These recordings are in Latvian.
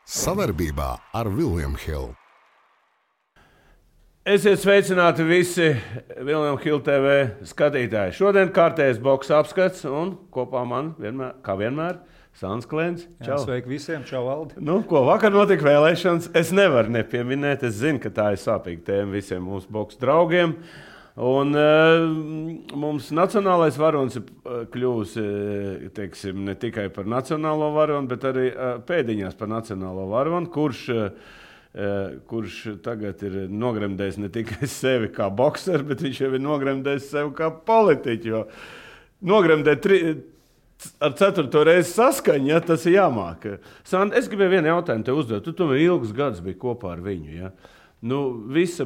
Sadarbībā ar William Hill. Esiet sveicināti visi William Hill TV skatītāji. Šodien kārtējais boks apskats un kopā man vienmēr, kā vienmēr, Sants Klēns. Jā, sveiki visiem, čau Valdi. Ko vakar notika vēlēšanas, es nevaru nepieminēt. Es zinu, ka tā ir sāpīga tēma visiem mūsu boks draugiem. Un mums nacionālais varonis kļūs, teiksim, ne tikai par nacionālo varoni, bet arī pēdiņās par nacionālo varoni, kurš tagad ir nogremdējis ne tikai sevi kā bokseri, bet viņš jau ir nogremdējis sevi kā politiķi. Jo nogremdēt ar 4. reizi saskaņu, ja, tas ir jāmāk. Sant, es gribēju vienu jautājumu tev uzdot. Tu tomēr ilgus gadus biji kopā ar viņu. Ja? Visa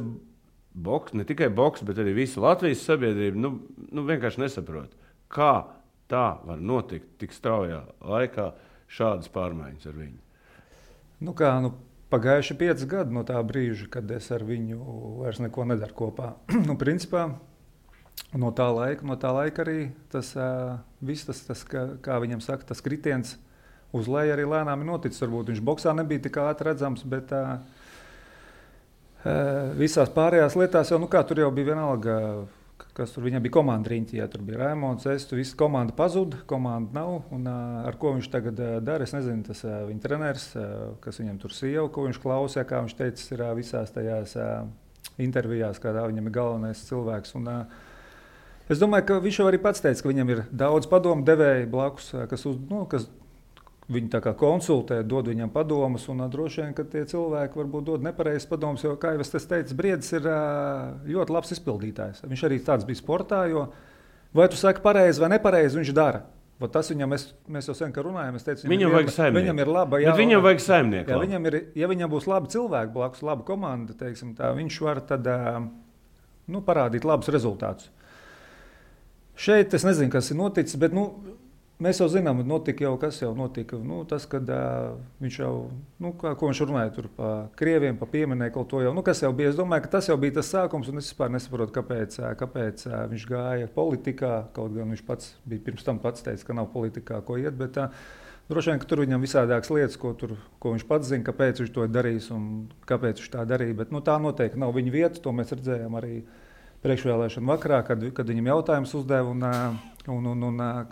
boks, ne tikai boks, bet arī visa Latvijas sabiedrība vienkārši nesaprot, kā tā var notikt tik straujā laikā šādas pārmaiņas ar viņu. Pagājuši 5 gadi no tā brīža, kad es ar viņu vairs neko nedaru kopā. Principā, no tā laika arī tas kā viņam saka, tas kritiens uz leju arī lēnām ir noticis. Varbūt viņš boksā nebija tik ātri redzams, bet visās pārējās lietās jau, tur jau bija vienalga, kas tur viņam bija komanda riņķi, ja tur bija Raimons, visa komanda pazuda, komanda nav, un ar ko viņš tagad dara, es nezinu, tas viņa treneris, kas viņam tur sieva, ko viņš klausīja, kā viņš teica, ir visās tajās intervijās, kādā viņam ir galvenais cilvēks, un es domāju, ka viņš jau arī pats teica, ka viņam ir daudz padomu devēji blakus, kas viņu tā kā konsultē, dod viņam padomus, un droši vien, ka tie cilvēki varbūt dod nepareizes padomus, jo, kā jau es teicu, Briedis ir ļoti labs izpildītājs. Viņš arī tāds bija sportā, jo vai tu saki pareizi vai nepareizi, viņš dara. Tas viņam, mēs jau sen, ka runājam, es teicu, viņam vajag saimnieku. Viņam ir laba, viņam vajag saimnieku. Ja viņam būs labi cilvēki blakus, laba komanda, teiksim tā, viņš var tad parādīt labus rezultātus. Šeit es nezinu, kas ir noticis, bet mēs jau zinām, kas jau notika. Tas, kad viņš jau, ko viņš runāja tur pa krieviem, pa pieminekli to jau, kas jau bija. Es domāju, ka tas jau bija tas sākums, un es vispār nesaprotu, kāpēc viņš gāja politikā. Kaut gan viņš pats bija pirms tam pats teica, ka nav politikā, ko iet, bet droši vien, ka tur viņam visādākas lietas, ko viņš pats zina, kāpēc viņš to ir darījis un kāpēc viņš tā darīja. Bet tā noteikti nav viņa vieta, to mēs redzējām arī priekšvēlēšanu vakarā, kad viņam jautājums uzdeva un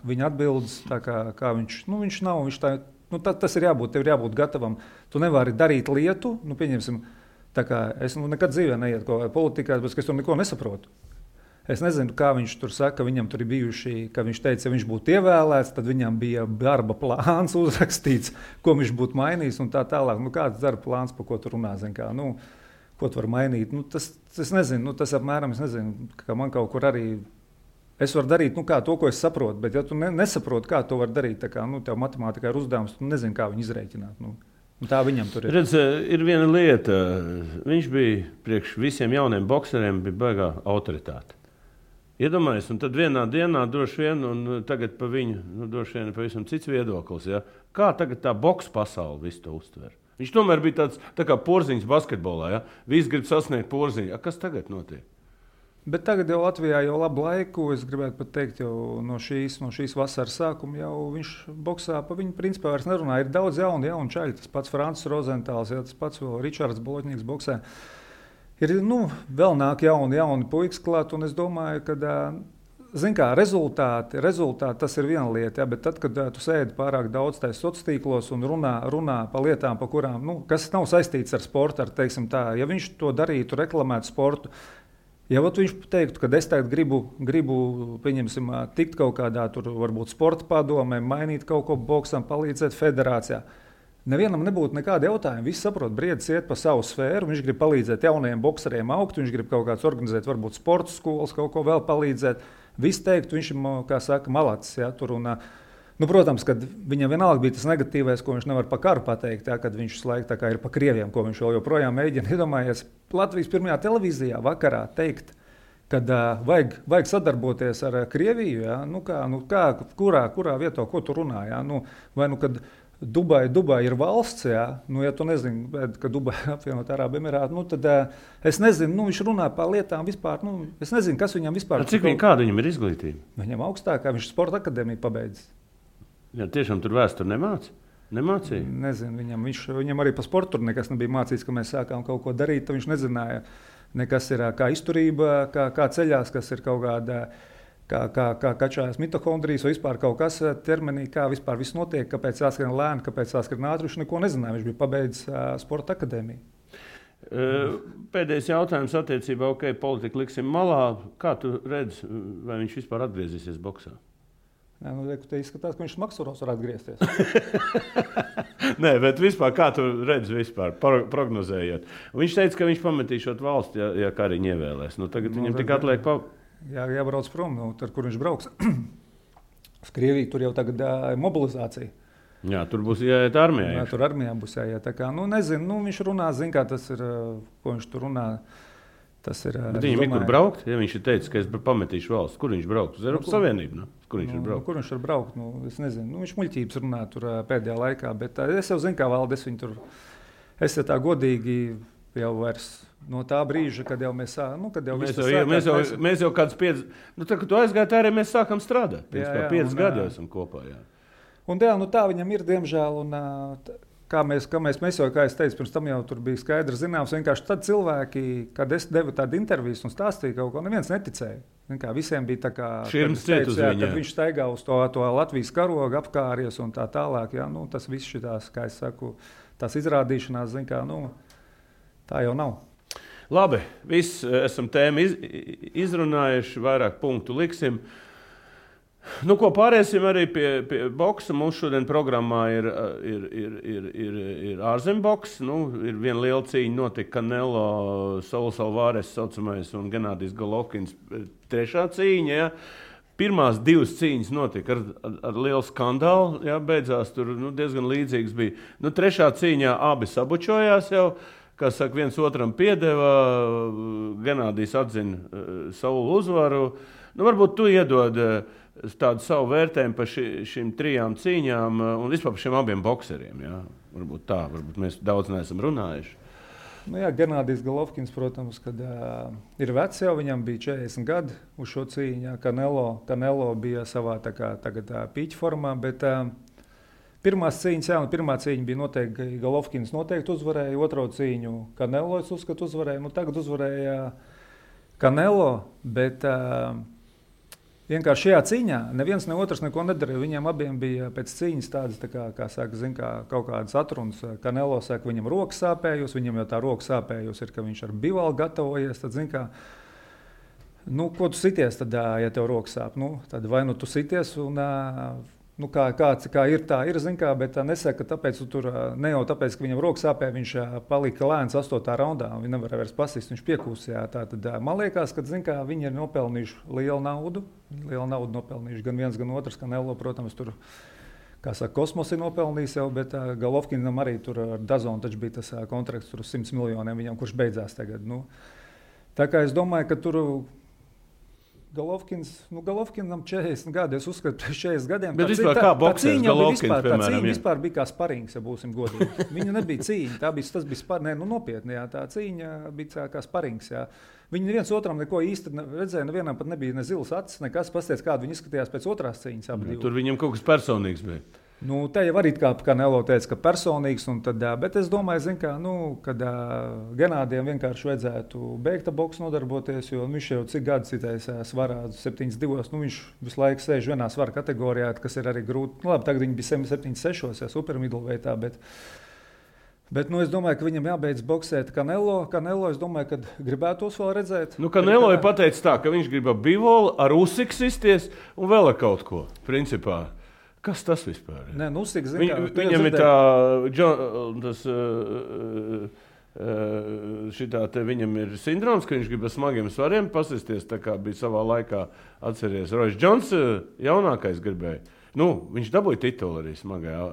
viņa atbildes, tā kā viņš nav, tas ir jābūt, tev ir jābūt gatavam. Tu nevari darīt lietu, pieņemsim, tā kā es nekad dzīvē neiet kaut vai politikās, bet es tur neko nesaprotu. Es nezinu, kā viņš tur saka, ka viņam tur ir bijuši, ka viņš teica, ja viņš būtu ievēlēts, tad viņam bija darba plāns uzrakstīts, ko viņš būtu mainījis un tā tālāk. Kāds darba plāns, pa ko tu runā, ko tu var mainīt? Es nezinu, tas apmēram, es nezinu, ka man kaut kur arī, es varu darīt, to, ko es saprotu, bet ja tu nesaproti, kā to var darīt, tā kā, tev matemātikā ir uzdevums, tu nezini, kā viņu izrēķināt. Tā viņam tur ir. Redz, ir viena lieta, viņš bija priekš visiem jauniem bokseriem, bija baigā autoritāte. Iedomājies, un tad vienā dienā droši vien, un tagad pa viņu, droši vien pavisam cits viedoklis, ja? Kā tagad tā boks pasaule visu to uztver? Viņš tomēr bija tāds tā kā Porziņš basketbolā, ja? Visi grib sasniegt Porziņu. Kas tagad notiek? Bet tagad jau Latvijā jau labu laiku, es gribētu pat teikt, jau no šīs vasaras sākuma jau viņš boksā pa viņu principā vairs nerunā. Ir daudz jaunu čaļu, tas pats Francis Rozentāls, tas pats vēl Ričards Bolotņīgs boksē. Ir, vēl nāk jauni puikas klāt, un es domāju, ka, rezultāti, tas ir viena lieta, bet tad, kad tu sēdi pārāk daudz tais sociālos tīklos un runā par lietām, pa kurām, kas nav saistīts ar sportu, teiksim tā, ja viņš to darītu, reklamētu sportu, ja viņš teiktu, ka es tagad gribu pieņemsim, tikt kaut kādā tur varbūt sporta padomē, mainīt kaut ko boksam, palīdzēt federācijā, nevienam nebūtu nekāda jautājuma. Visi saprot, Briedis iet pa savu sfēru, viņš grib palīdzēt jaunajiem bokseriem augt, viņš grib kaut kāds organizēt, varbūt sporta skolas, kaut ko vēl palīdzēt. Visi teikt, viņš ir, kā saka, malacis. Ja, tur un, protams, kad viņam vienalga bija tas negatīvais, ko viņš nevar pa karu pateikt, ja, kad viņš laiku tā kā ir pa krieviem, ko viņš vēl joprojām mēģina. Iedomājies, Latvijas pirmajā televīzijā vakarā teikt, kad vajag sadarboties ar Krieviju, ja, kurā vietā, ko tu runā, ja, kad Dubai ir valsts, ja tu nezini, ka Dubai apvienot Arābu Emirātu, tad es nezinu, viņš runā par lietām vispār, es nezinu, kas viņam vispār. Kāda viņam ir izglītība? Viņam augstākā, viņš sporta akadēmiju pabeidzis. Ja tiešām tur vēsturi nemāca? Nemācīja? Nezinu, viņam arī pa sportu tur nekas nebija mācīts, ka mēs sākām kaut ko darīt. Viņš nezināja, nekas ir kā izturība, kā ceļās, kas ir kaut kāda, kā kačājas mitohondrijas vai vispār kaut kas ķermenī, kā vispār viss notiek, kāpēc jāskrien lēni, kāpēc jāskrien ātri. Viņš neko nezināja, viņš bija pabeidzis sporta akadēmiju. Pēdējais jautājums attiecībā, politika liksim malā. Kā tu redzi, vai viņš vispār atgriezīsies boksā? Nē, te izskatās, ka viņš maksuros var atgriezties. Nē, bet vispār, kā tu redzi vispār, prognozējot? Viņš teica, ka viņš pametīšot valsti, ja Kariņu ievēlēs. Tagad viņam tik atliek jābrauc prom, tad, kur viņš brauks. Uz Krieviju tur jau tagad mobilizācija. Jā, tur būs jāiet armijā. Jā, tur armijā būs jāiet. Tā kā, nezinu, viņš runā, zin kā tas ir, ko viņš tur runā. Tas ir. Bet viņam ir kur braukt, ja viņš ir teicis, ka es pametīšu valsts. Kur viņš braukt? Uz Eiropas Savienību? Kur viņš ir braukt? Kur viņš var braukt? Es nezinu. Viņš muļķības runā tur pēdējā laikā, bet es jau zinu, kā Valdes viņu tur. Es tā godīgi jau vairs no tā brīža, kad jau mēs mēs jau kāds 5, tā, kad tu aizgāji, tā arī mēs sākam strādāt. Jā, 5 gadi jau esam kopā. Jā. Un tā viņam ir, diemžēl, un kā mēs jau, kā es teicu, pirms tam jau tur bija skaidrs zināms, vienkārši tad cilvēki, kad es devu tādu interviju un stāstīju kaut ko, neviens neticēja. Visiem bija tā kā, kad viņš staigā uz to Latvijas karogu, apkāries un tā tālāk. Jā, tas viss šitās, kā es saku, tās izrādīšanās, tā jau nav. Labi, viss esam tēmu izrunājuši, vairāk punktu liksim. Ko pāriesim arī pie boksa. Mums šodien programmā ir ārzemboks. Ir viena liela cīņa notika Canelo, Sauls Alvarez saucamais un Genādijs Golovkins. Trešā cīņa, ja. Pirmās 2 cīņas notika ar lielu skandālu, ja, beidzās tur diezgan līdzīgs bija. Trešā cīņā abi sabučojās jau, kā saka, viens otram piedeva, Genādijs atzina Saulu uzvaru. Varbūt tu iedod tādu savu vērtējumu par šīm 3 cīņām un vispār par šiem abiem bokseriem. Ja? Varbūt mēs daudz neesam runājuši. Genādijs Golovkins, protams, kad ir vecs jau, viņam bija 40 gadi uz šo cīņu. Canelo bija savā tagad pīķa formā, bet pirmā cīņa bija noteikti, Golovkins noteikti uzvarēja, otro cīņu Canelo, es uzskatu, uzvarēja. Tagad uzvarēja Canelo, bet vienkārši šajā cīņā neviens ne otrs neko nedarīja. Viņiem abiem bija pēc cīņas tādas, kā saka, kaut kādas atrunas. Canelo saka, viņam roka sāpējus, viņam jau tā roka sāpējus ir, ka viņš ar bivalu gatavojies. Tad, ko tu sities, tad, ja tev roka sāp? Tad vai tu sities un kā ir, tā ir, bet nesaka, ka tāpēc tur ne jau tāpēc, ka viņam roka sāpēja, viņš palika lēns 8. raundā, viņš nevarēja vairs pasist, viņš piekūsījā. Tad man liekas, ka viņi ir nopelnījuši lielu naudu nopelnījuši gan viens, gan otrs, Canelo, protams, tur, kā saka, kosmos ir nopelnījis jau, bet Golovkinam arī tur ar Dazonu taču bija tas kontrakts tur uz 100 miljoniem viņam, kurš beidzās tagad. Tā kā es domāju, ka tur Golovkinam 40 gadi, es uzskatu, pēc 40 gadiem. Bet vispār kā boksers Golovkins, piemēram? Tā cīņa vispār bija kā sparings, ja būsim godīgi. Viņa nebija cīņa, tas bija sparings, nopietni, jā, tā cīņa bija kā sparings, jā. Viņi neviens otram neko īsti redzēja, nevienam pat nebija ne zilas acis, nekas, pasties, kādu viņi izskatījās pēc otrās cīņas. Tur viņam kaut kas personīgs bija. Te jau arī kā Canelo teica, ka personīgs, bet es domāju, kad Genādijam vienkārši vajadzētu beigt ar boksu nodarboties, jo viņš jau cik gadus citais svarā 72, viņš visu laiku sēž vienā svara kategorijā, kas ir arī grūti. Labi, tagad viņi bija 76, ja super middleweightā, bet es domāju, ka viņam jābeidz boksēt Canelo, es domāju, ka gribētos vēl redzēt. Canelo ir pateicis tā, ka viņš grib ar bivolu, ar Usyk sisties un vēl ar kaut ko, principā. Kas tas vispār ir? Nē, viņam ir viņam ir sindroms, ka viņš grib ar smagiem svariem pasisties, tā kā bija savā laikā, atceries, Royce Jones jaunākais gribēja. Viņš dabūja titulu arī smagajā.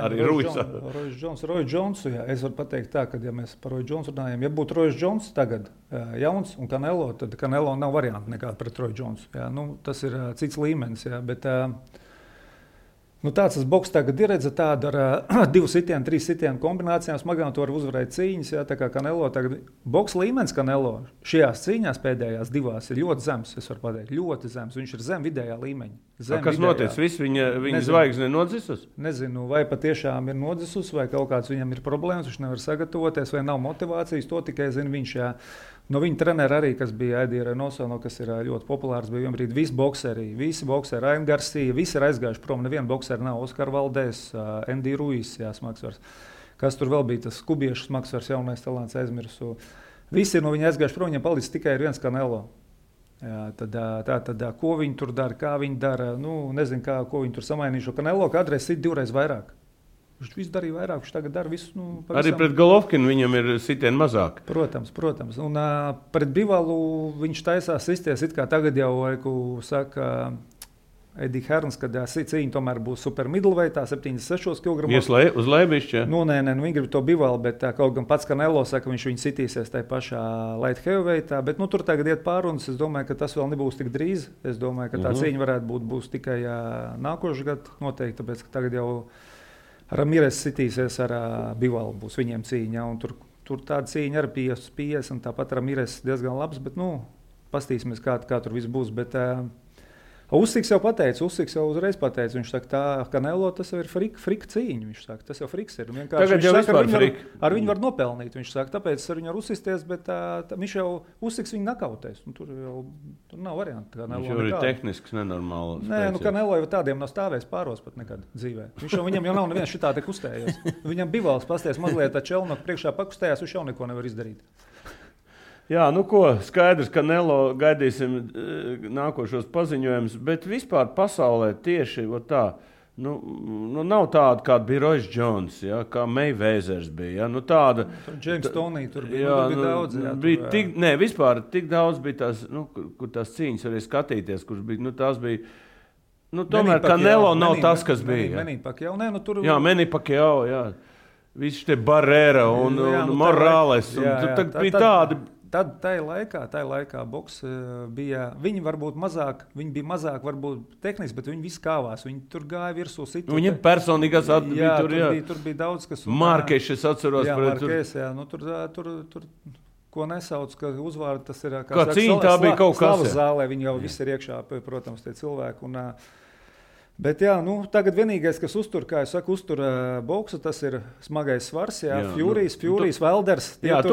Arī Royce Jones, jā, es varu pateikt tā, ka ja mēs par Royce Jones runājam, ja būtu Royce Jones tagad jauns un Canelo, tad Canelo nav varianti nekāda pret Royce Jones. Jā, tas ir cits līmenis, jā, bet Nu, tāds boks tagad ir redzams, tāda ar 2 sitienu, 3 sitienu kombinācijām smagām to var uzvarēt cīņas. Jā, tā kā Canelo tagad boks līmenis Canelo šajās cīņās pēdējās 2 ir ļoti zems, es varu pateikt, ļoti zems. Viņš ir zem vidējā līmeņa. Kas notiek? Viņa zvaigzne nodzisus? Nezinu, vai patiešām ir nodzisus, vai kaut kāds viņam ir problēmas, viņš nevar sagatavoties, vai nav motivācijas, to tikai zina viņš. Jā. No viņa trenera arī, kas bija Eddie Reynoso, kas ir ļoti populārs, bija vienbrīd visi bokseri, Ryan Garcia, visi ir aizgājuši prom, neviena bokseri nav, Oskar Valdēs, Andy Ruiz, jā, smagsvars. Kas tur vēl bija, tas kubiešu smagsvars, jaunais talants aizmirsu. Visi ir no viņa aizgājuši prom, viņam palicis tikai viens Canelo. Jā, tad, ko viņi tur dara, kā viņi dara, nezinu, ko viņi tur samainījuši. Canelo kādreiz sit 2 vairāk. Viņš visu darīja vairāk, viņš tagad dara visu. Pavisam. Arī pret Golovkinu viņam ir sitieni mazāk. Protams. Un pret Bivalu viņš taisās sisties, it kā tagad jau, saka Eddie Hearns, kad cīņa tomēr būs super middleweightā, 76 kg. Uz lēbišķi? Nē, viņi grib to Bivalu, bet kaut gan pats Canelo saka, viņš viņu sitīsies tajā pašā light heavyweightā, bet tur tagad iet pārunas, es domāju, ka tas vēl nebūs tik drīz. Es domāju, ka tā cīņa varētu būs tikai nākošais gads noteikti, tāpēc, ka tagad jau Ramirez sitīsies ar Bivalu, būs viņiem cīņa, un tur tāda cīņa ar 50, un tāpat Ramirez diezgan labs, bet, pastīsimies, kā tur viss būs, bet Usyks jau uzreiz pateica, viņš saka, tā Canelo tas jau ir frika cīņa, viņš saka, tas jau friks ir, tagad jau vispār frik. Ar viņu var nopelnīt, viņš saka, tāpēc ar viņu var uzsisties, bet viņš jau Usyks viņu nakautēs, un tur nav variantu. Viņš jau ir tehnisks, nenormāls. Nē, Canelo jau tādiem nav stāvējis pāros pat nekad dzīvē. Viņam jau nav neviens šitā te kustējies. Viņam Bivals pasties mazliet Čelnoku priekšā pakustējās, viņš jau neko nevar izdarīt. Jā, skaidrs, ka Canelo gaidīsim nākošos paziņojumus, bet vispār pasaulē tieši tā, nav tāda, kāda bija Royce Jones, ja, kā Mayweathers bija. Ja, tāda, James Toney tur bija daudz. Vispār tik daudz bija tās, kur tās cīņas arī skatīties, kurš bija, tās bija, tomēr Canelo nav tas, kas bija. Manny Pacquiao, tur... Jā, Manny Pacquiao, jā. Visi tie Barrera un Morales, un tad bija tādi... Tad tajā laikā boks bija, viņi varbūt mazāk, varbūt tehniski, bet viņi visi kāvās, viņi tur gāja virsū situ. Viņam personīgās atbija tur bija daudz, kas... Markeš, es atceros. Jā, Markeš, jā, tur, ko nesauc, ka uzvārdi tas ir... Kā cīņa tā bija kaut kas. Slavas zālē, viņi jau visi ir iekšā, protams, tie cilvēki, un... Bet jā, tagad vienīgais, kas uztur boksu, tas ir smagais svars, Furijas, Welders. Tad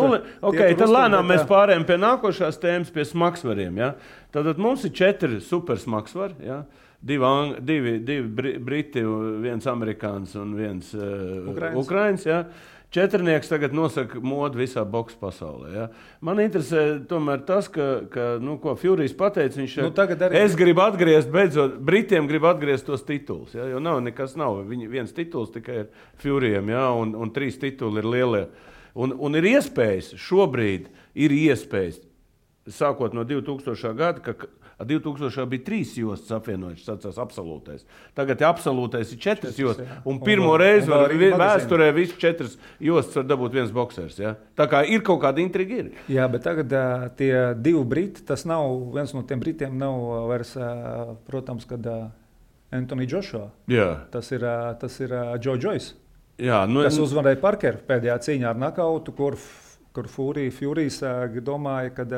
lēnām mēs pārējām pie nākošās tēmas, pie smagsvariem. Ja? Tad mums ir 4 super smagsvari, ja? 2 briti, 1 amerikāns un 1 ukrains. Ja? 4 tagad nosaka modu visā boksa pasaulē. Ja? Man interesē tomēr tas, ko Furijas pateica, viņš es gribu atgriezt, beidzot, Britiem grib atgriezt tos titulus, ja? Jo nekas nav, viens tituls tikai ir Furijam, ja? un 3 tituli ir lielie. Un ir iespējas, šobrīd ir iespējas, sākot no 2000. Gada, ka 2000. bija 3 jostas apvienojušas, sacās absolūtais. Tagad absolūtais ir 4 jostas, un pirmo reizi vēsturē visu 4 jostas var dabūt viens boksers. Ja? Tā kā ir kaut kāda intriga. Jā, bet tagad tie 2 briti, tas nav, viens no tiem britiem nav vairs, protams, kad Anthony Joshua. Jā. Tas ir Joe Joyce, jā, kas uzvarēja Parkeru pēdējā cīņā ar nakautu, kur Furijas domāja, kad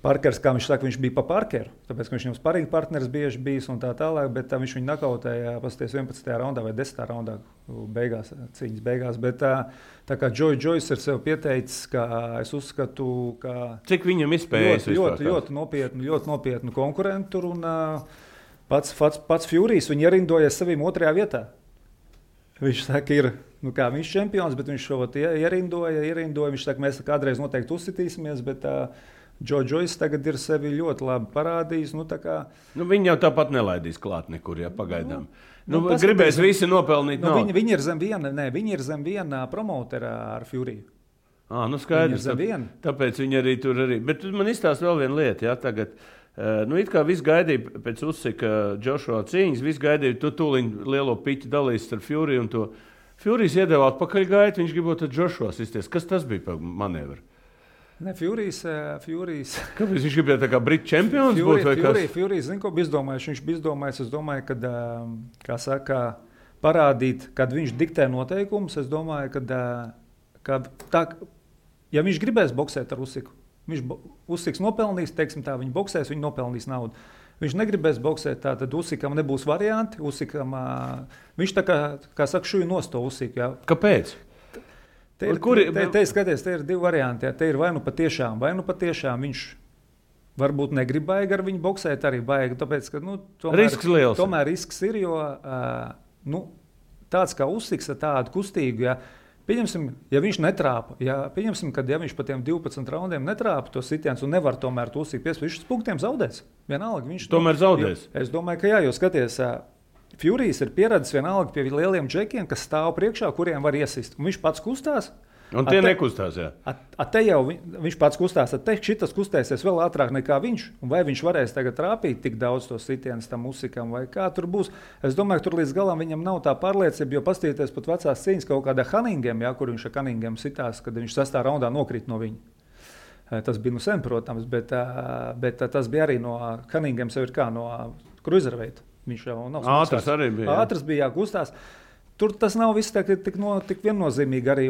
Parkers, kā viņš saka, viņš bija pa Parkeru, tāpēc, ka viņš viņam sparring partneris bieži bijis un tā tālāk, bet viņš viņu nakautēja pasties 11. raundā vai 10. raundā cīņas beigās. Bet tā kā Joe Joyce ir sev pieteicis, ka es uzskatu, ka... Cik viņam izspējas ļoti nopietnu konkurentu tur, un pats Furijas viņu ierindojas saviem 2. vietā. Viņš saka, viņš ir čempions, bet viņš šo ierindoja. Viņš saka, mēs kādreiz noteikti uzsitīsimies, bet... Joe Joyce tagad ir sevi ļoti labi parādījis. Viņi jau tāpat nelaidīs klāt nekur, ja pagaidām. Gribēs visi nopelnīt. Viņi ir zem viena promotera ar Furiju. Skaidrs. Tāpēc viņi arī tur arī. Bet man izstāsta vēl viena lieta. Ja, tagad, it kā viss gaidīja pēc Usyka Joshua cīņas, viss gaidīja, tu tūliņ lielo piķi dalīs ar Furiju un to. Furijas iedeva atpakaļ gaitu, viņš gribot ar Joshua sisties. Kas tas bija par manevru? Ne, Furijas. Kāpēc viņš gribēja tā kā Britu čempions būt? Furijas, zinu, ko bija izdomājis. Viņš bija izdomājis, es domāju, kad, kā saka, parādīt, kad viņš diktē noteikumus. Es domāju, ka tā, ja viņš gribēs boksēt ar Usiku, Usiks nopelnīs, teiksim tā, viņi boksēs, viņi nopelnīs naudu. Viņš negribēs boksēt, tad Usikam nebūs varianti. Usikam, viņš tā kā saka, šuju nosto Usiku. Jā. Kāpēc? Te ir divi varianti. Jā. Te ir vai nu patiešām viņš varbūt negrib baigi ar viņu boksēt, arī baigi, tāpēc, ka risks liels. Tomēr risks ir, jo tāds kā Usiks ar tādu kustīgu, jā, pieņemsim, ja viņš netrāpa, ja viņš pa tiem 12 raundiem netrāpa to sitiens un nevar tomēr to Usiku piespēt, viņš uz punktiem zaudēs. Vienalga, viņš tomēr zaudēs. Es domāju, ka jā, jo skaties, Furijas ir pieredzis vienalga pie lieliem džekiem, kas stāv priekšā, kuriem var iesist. Un viņš pats kustās. Un tie nekustās, jā. Te jau viņš pats kustās, šitas kustēsies vēl ātrāk nekā viņš. Un vai viņš varēs tagad trāpīt tik daudz to sitienus tam Usikam, vai kā tur būs. Es domāju, ka tur līdz galam viņam nav tā pārliecība, jo paskatieties pat vecās cīņas kaut kādā Cunningam, jā, kur viņš ar Cunningam sitās, kad viņš 6. raundā nokrīt no viņa. Tas bija sen, protams, bet tas bija arī no Cunningam sev ir kā no cruiserweight. Viņš jau nav ātrs arī bija. Ātrs bija, kustās. Tur tas nav viss tik viennozīmīgi arī.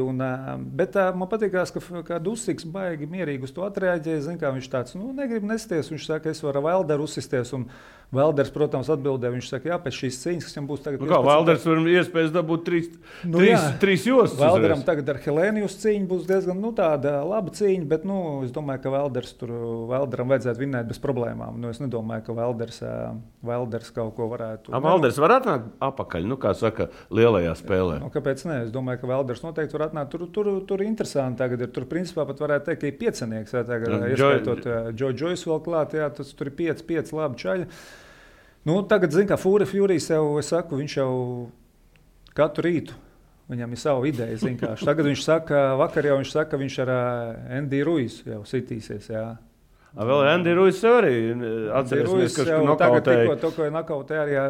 Bet man patīkās, ka Usiks baigi mierīgi uz to atreaģēja. Zin, kā viņš tāds negrib nesties. Viņš saka, es varu Valderu uzsisties. Un Valders, protams, atbildēja. Viņš saka, jā, pēc šīs cīņas, kas viņam būs tagad. Kā Valders var iespējas dabūt trīs jostas? Valderam tagad ar Helēnijus cīņu būs diezgan tāda laba cīņa. Bet es domāju, ka Valderam vajadzētu vinnēt bez problēmām. Es nedomāju, ka Valders kaut ko varētu. Valders var atnākt apakaļ, kā saka, lielajā spēlē. Kāpēc ne? Es domāju, ka Valders noteikti var atnākt. Tur interesanti tagad ir. Tur principā pat varētu teikt, ka ir piecinieks. Ieskaitot Džoju vēl klāt, jā, tur ir 5 labi čaļi. Tagad, kā Furijas jau, es saku, viņš jau katru rītu, viņam ir sava ideja, Tagad viņš saka, vakar jau viņš saka, viņš ar Andy Ruizu jau sitīsies, jā. Vēl Andy Ruiz arī atcerēsimies, ka nokautēja. To, ko nokautēja arī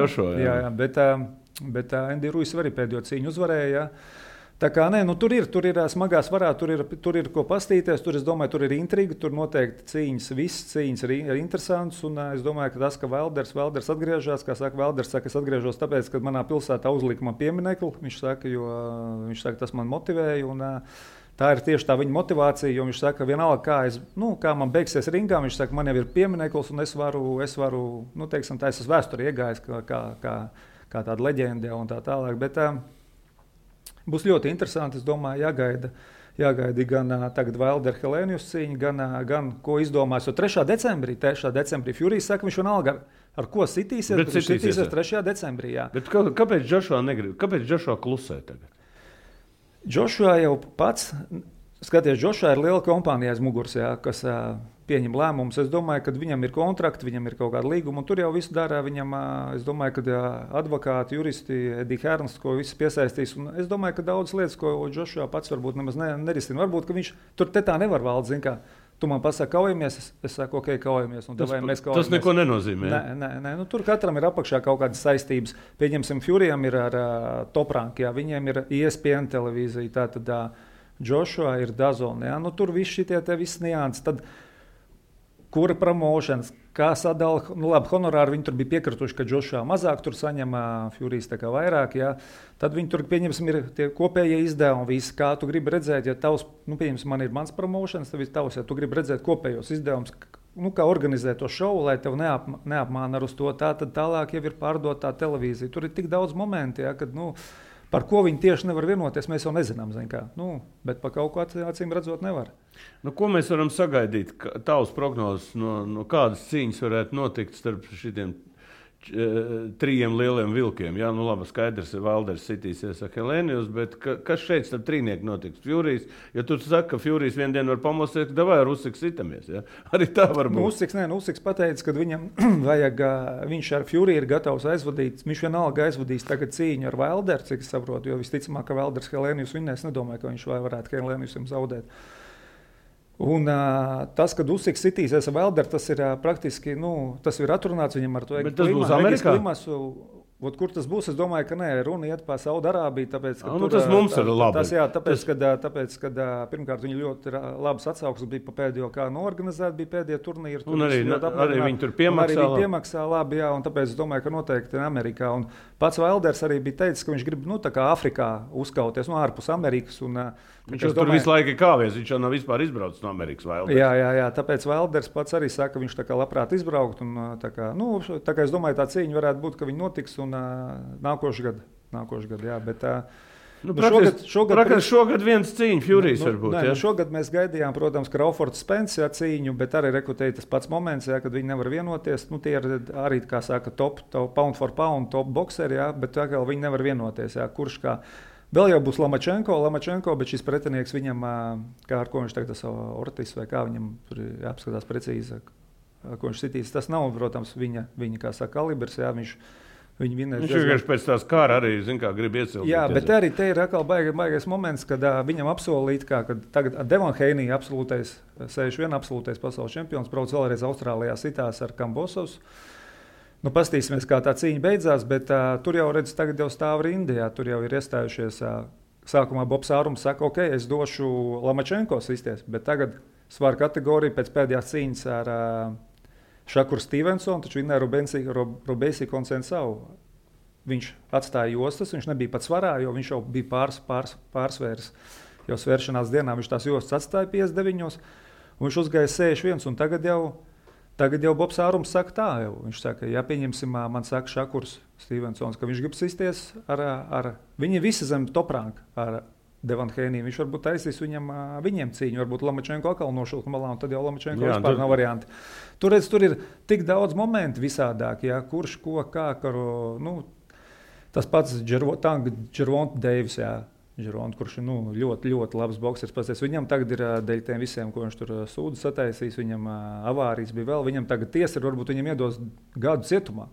Joshua, jā. Bet Andy Ruiz arī pēdējo cīņu uzvarēja, jā. Tā kā tur ir smagā svarā, tur ir ko pastīties, es domāju, tur ir intriga, tur noteikti visas cīņas ir interesantas, un es domāju, ka tas, ka Valders atgriežas, kā saka, Valders saka, es atgriežos tāpēc, ka manā pilsētā uzlika man pieminekli, viņš saka, tas man motivēja, un tā ir tieši tā viņa motivācija, jo viņš saka, vienalga, kā man beigsies ringā, viņš saka, man jau ir piemineklis, un es varu, teiksim, tā es esmu vēsturē iegājis kā tāda leģenda un tā tālāk, bet būs ļoti interesanti, es domāju, jāgaida gan tagad Valder Helēnijus cīņa, gan ko izdomās, jo 3. decembrī Furijas saka, viņš vienalga ar ko sitīsies, bet viņš sitīsies 3. decembrī, jā. Bet kāpēc Joshua negrib? Kāpēc Joshua klusē tagad? Joshua jau pats, skaties, Joshua ir liela kompānija aiz muguras, jā, kas pieņem lēmumus. Es domāju, ka viņam ir kontrakti, viņam ir kaut kāda līguma, un tur jau viss dara. Viņam, es domāju, ka advokāti, juristi, Edija Hērns, ko visi piesaistīs. Un es domāju, ka daudz lietas, ko Joshua pats varbūt nemaz nerisina. Varbūt, ka viņš tur tā nevar valdīt, zin kā. Tu man pasaki, kaujamies, es saku, ok, kaujamies. Tas neko nenozīmē. Nē. Tur katram ir apakšā kaut kādas saistības. Pieņemsim, Furijam ir ar Top Rank, jā, viņiem ir ESPN televīzija, tātad Joshua ir DAZN, jā. Tur viss šitie visi nianses. Tad kura promošanas, kā sadala, labi, honorāri viņi tur bija piekrituši, ka Joshua mazāk tur saņem, Furijas tā kā vairāk, jā. Tad viņi tur, pieņemsim, ir tie kopējie izdevumi, visi, kā tu gribi redzēt, ja tavs, pieņemsim, man ir mans promošanas, tad viss tavs, ja tu gribi redzēt kopējos izdevumus, kā organizēt to šovu, lai tev neapmāna ar uz to, tad tālāk jau ir pārdotā televīzija. Tur ir tik daudz momenti, jā, kad, par ko viņi tieši nevar vienoties, mēs jau nezinām, bet par kaut ko acīm redzot nevar. Ko mēs varam sagaidīt? Tavs prognozes, no kādas cīņas varētu notikt starp šitiem 3 lieliem vilkiem? Jā, labi, skaidrs, Valders sitīsies ar Helēnijus, bet kas šeit starp trīnieku notiks? Furijas, ja tu saki, ka Furijas vienu dienu var pamosties, ka davai ar Usiks sitamies, jā? Arī tā var būt. Usiks pateica, ka viņam vajag, viņš ar Furiju ir gatavs aizvadīt, viņš vienalga aizvadīs tagad cīņu ar Valderu, cik es saprotu, jo visticamāk, ka Valders Helēnijus vinnēs, nedomāju, ka viņš varētu Helēnijusam zaudēt. Un tas, kad Usiks sitīsies ar Valderu, tas ir praktiski, tas ir atrunāts viņam ar to. Bet tas būs Amerikā? Kur tas būs? Es domāju, ka nē, runa iet par Saudarābiju. Tāpēc, tas mums ir labi. Tāpēc, kad pirmkārt viņi ļoti labas atsauksmes bija pa pēdējo, kā norganizēt, bija pēdējie turnīri. Un arī viņi tur piemaksā labi, jā, un tāpēc es domāju, ka noteikti Amerikā. Un pats Vailders arī bija teicis, ka viņš grib, tā kā Afrikā uzkauties, ārpus Amerikas. Un, viņš tur visu laiku ir kāvies, viņš jau nav vispār izbraucis no Amerikas. Vailders. Jā, tāpēc Vailders pats arī saka, ka viņš tā kā labprāt izbraukt. Un, tā kā es domāju, tā cīņa varētu būt, ka viņi notiks un nākošais gads, jā, bet šogad viens cīņa Furijas varbūt. Nē, šogad mēs gaidījām, protams, Crawfords Spence cīņu, bet arī rekrutēja tas pats moments, jā, kad viņi nevar vienoties. Tie ir arī, kā saka, top pound for pound, top boxeri, jā, bet tā kā viņi nevar vienoties, jā, kurš kā. Vēl jau būs Lamačenko, bet šis pretinieks viņam, kā ar ko viņš tagad Ortis vai kā viņam tur jāapskatās precīzi, ko viņš sitīs. Tas nav, protams, viņa kā saka, kalibrs, jā, viņš vienkārši pēc tās kāra arī, grib iecelt. Jā, bet arī te ir atkal baigais moments, kad viņam apsolīt, kad tagad Devon Haney absolūtais, 61 absolūtais pasaules čempions, brauc vēlreiz Austrālijā sitās ar Kambosovs. Pastīsimies, kā tā cīņa beidzās, bet tur jau redz, tagad jau stāv rindā, tur jau ir iestājušies. Sākumā Bobs Ārums saka, ok, es došu Lamačenko sisties, bet tagad svara kategorija pēc pēdējās cīņas ar Šakuru Stevensonu, taču vinnēja Robesi Konsensau. Viņš atstāja jostas, viņš nebija pat svarā, jo viņš jau bija pārsvērs. Jau svēršanās dienā viņš tās jostas atstāja 59, un viņš uzgāja 61, un tagad jau Bobs Ārums saka tā, jau. Viņš saka, ja pieņemsim, man saka Šakurs Stevensons, ka viņš grib sisties ar viņi visi zem top-ranka ar Devon Haney. Viņš varbūt taisīs viņiem cīņu, varbūt Lamačenko atkal nošūk malā, un tad jau Lamačenko vispār nav varianti. Tur ir tik daudz momentu visādāk, jā, kurš, ko, kā, tas pats Gervonta Deivis, jā, kurš ir ļoti, ļoti labs boksers. Pasties, viņam tagad ir dēļ tiem visiem, ko viņš tur sūdu sataisīs, viņam avārijas bija vēl, viņam tagad tiesa ir, varbūt viņam iedos gadu cietumā.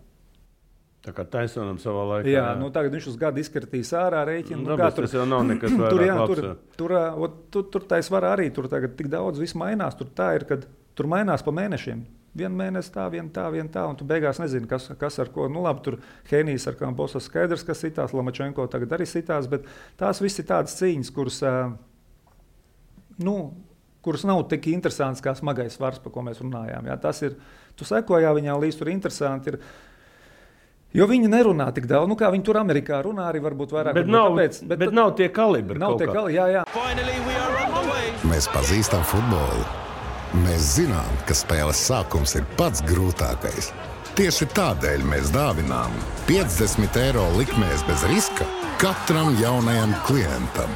Tā kā Taisonam savā laikā. Jā, tagad viņš uz gadu izkartīs ārā rēķinu. Tas jau nav nekas vairāk. Tur tā svarā arī, tur tagad tik daudz viss mainās. Tur tā ir, kad tur mainās pa mēnešiem. Vienu mēnesi tā, vienu tā, un tu beigās nezini, kas ar ko. Labi, tur Henijs ar Kambosas skaidrs, kas sitās, Lamačenko tagad arī sitās, bet tās visi tādas cīņas, kuras nav tik interesantas kā smagais svars, par ko mēs runājām. Jā, tas ir, tu sekojā viņā līdz tur interesanti ir. Jo viņi nerunā tik daudz, kā viņi tur Amerikā runā arī varbūt vairāk. Bet nav tie kalibri. Jā. Mēs pazīstam futbolu. Mēs zinām, ka spēles sākums ir pats grūtākais. Tieši tādēļ mēs dāvinām 50 eiro likmēs bez riska katram jaunajam klientam.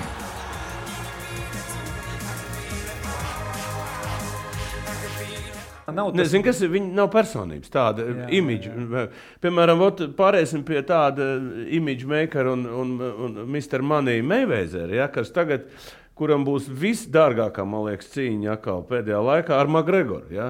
Nezinu, kas ir. Viņi nav personības, tāda imidža. Piemēram, pārēsim pie tāda imidža makera un Mr. Money Mayweather, ja, kas tagad, kuram būs visdārgākā, man liekas, cīņa atkal pēdējā laikā ar McGregoru. Ja.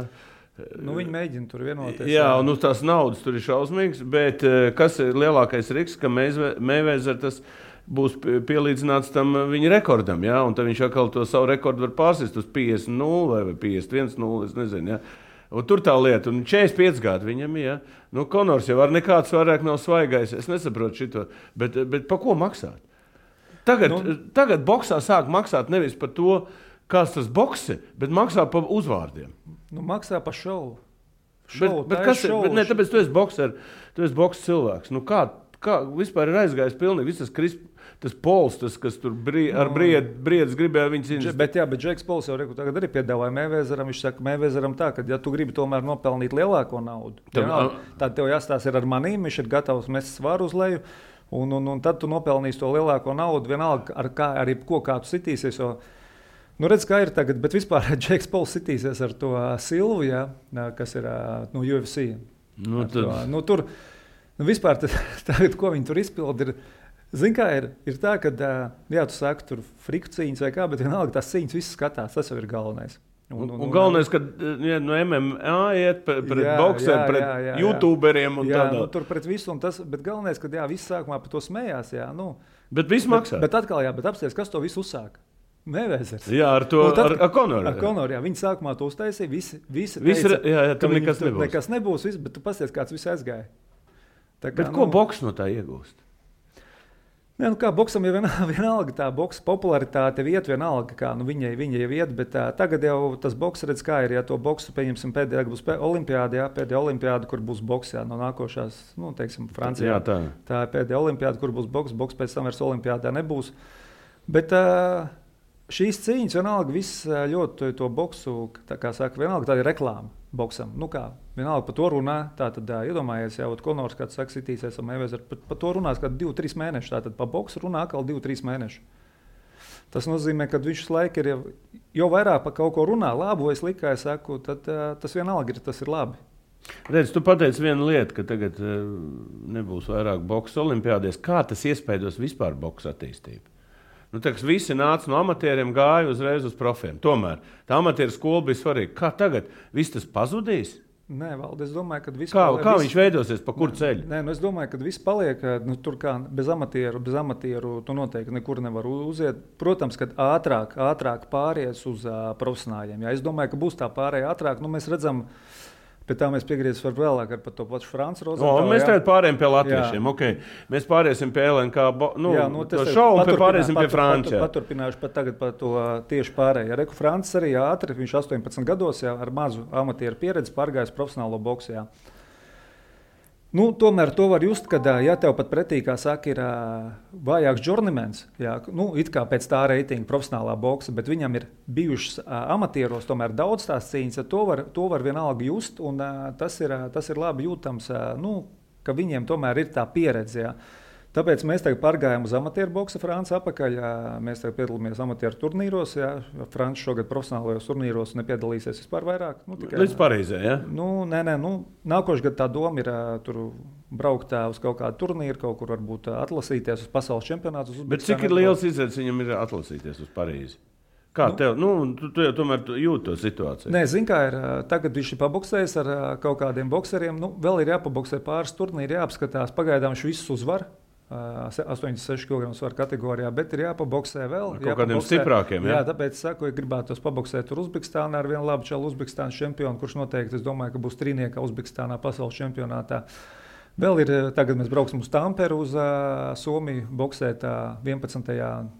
Viņi mēģina tur vienoties. Jā, un tās naudas tur ir šausmīgas, bet kas ir lielākais risks, ka Mayweather tas būs pielīdzināts tam viņa rekordam, ja, un tad viņš atkal to savu rekordu var pārsist uz 50-0 vai 51-0, es nezinu, ja. Un tur tā lieta, un 45 gadi viņam, ja. Konors jau ar nekāds vairāk nav svaigais, es nesaprotu šito, bet pa ko maksāt? Tagad boksā sāk maksāt nevis par to, kāds tas boks ir, bet maksā par uzvārdiem. Maksā par šovu. Tāpēc tu esi bokser, tu esi boks cilvēks. Kā vispār ir aizgājis pilnīgi viss tas Pols, kas tur ar briedis gribēja viņu cīnīt. Bet Džeks Pols jau tagad arī piedāvāja Mayweatheram. Viņš saka, Mayweatheram tā, ka ja tu gribi tomēr nopelnīt lielāko naudu, tad tev jāstāsta ir ar manīm, viņš ir gatavs mest svaru uz leju, un tad tu nopelnīsi to lielāko naudu, vienalga arī kā tu sitīsies. Redz, kā ir tagad, bet vispār Džeks Pols sitīsies ar to Silvu, ja, kas ir UFC. Tur vispār tagad, ko viņi tur izpildi, zini, kā ir tā, ka, tu saki, tur friku cīņas vai kā, bet vienalga tās cīņas visas skatās, tas jau ir galvenais. Un galvenais, ka no MMA iet pret bokseru, pret youtuberiem un tādā. Tur pret visu, bet galvenais, ka viss sākumā par to smējās, Bet viss maksā. Bet atkal, bet apsties, kas to visu uzsāka? Mayweathers. Jā, ar to, ar Konoru. Ar Konoru, viņi sākumā to uztaisīja, visi teica, tur nekas nebūs. Nekas nebūs, bet tu pasties, kāds viss aizgāja. Bet ko boks no tā iegūst? Nē, kā boksam jau vienalga tā boksa popularitāte iet vienalga, kā viņai jau iet, bet tagad jau tas boks redz, kā ir, ja to boksu, pieņemsim, pēdējā būs olimpiāda, pēdējā olimpiāda, kur būs boks, no nākošās, teiksim, Francijā. Jā, tā ir pēdējā olimpiāda, kur būs boks pēc tam vairs olimpiādā nebūs. Bet šīs cīņas vienalga viss ļoti to boksu, tā kā saka, vienalga tā ir reklāma boksam. Vienalga par to runā, tātad iedomājies, jau Konors, kāds saka, sitīsies ar Mayweather, par to runās kādu 2-3 mēnešus, tātad par boksu runā atkal 2-3 mēnešus. Tas nozīmē, ka viņš laiku ir jau vairāk par kaut ko runā, labu vai sliktu, kā es saku, tad tas vienalga tas ir labi. Redz, tu pateici vienu lietu, ka tagad nebūs vairāk boksa olimpiādēs. Kā tas iespaidos vispār boksa attīstību? Visi nāca no amatieriem, gāja uzreiz uz profiem. Tomēr tā amatieru skola bija svarīga. Kā tagad? Viss tas pazudīs? Nē, Valdi, es domāju, ka viss paliek. Kā viņš veidosies, pa kuru ceļu? Nē, es domāju, ka viss paliek. Tur kā bez amatieru tu noteikti nekur nevar uziet. Protams, kad ātrāk pāries uz profesionāļiem. Jā, es domāju, ka būs tā pārēja ātrāk. Mēs redzam, pēc tā mēs piegriezīsim vēlāk par to pašu Franci Rozentālu. Mēs tagad pārējām pie latviešiem. Okay. Mēs pāriesim pie LNK šovu un pāriesim pie Franča. Paturpināšu pat tagad par to tieši pārēju. Reku Francis arī ātri, viņš 18 gados ar mazu amatieru pieredzi pārgājis profesionālo boksu. Jā. Tomēr to var just, kad ja tev pat pretī, kā saka, ir vājāks journeymans, it kā pēc tā reitinga profesionālā boksa, bet viņam ir bijušas amatieros tomēr daudz tās cīņas, to var vienalga just, un tas ir labi jūtams, ka viņiem tomēr ir tā pieredze. Jā. Tāpēc mēs tagad pārgājām uz amatieru boksa Franci apakaļ. Mēs tagad piedalāmies amatieru turnīros. Franci šogad profesionālajos turnīros nepiedalīsies vispār vairāk. Līdz Parīzē, ja? Nē. Nākošais gads tā doma ir tur braukt uz kaut kādu turnīru, kaut kur varbūt atlasīties uz pasaules čempionātu. Bet cik ir liels izredzes viņam ir atlasīties uz Parīzi? Kā tev? Tu jau tomēr jūti to situāciju. Nē, zini, kā ir. Tagad viņš ir paboksējis ar kaut kādiem bokseriem. Vēl ir jāpaboksē pāris turnīri, jāapskatās. Pagaidām viņš visus uzvar. 86 kg svaru kategorijā, bet ir jāpaboksē vēl. Kaut kādiem stiprākiem, jā, tāpēc saku, ja gribētu paboksēt tur Uzbekistānā ar vienu labu čalu Uzbekistānas čempionu, kurš noteikti, es domāju, ka būs trīniekā Uzbekistānā pasaules čempionātā. Vēl ir, tagad mēs brauksim uz Tamperu uz Somiju boksēt 11.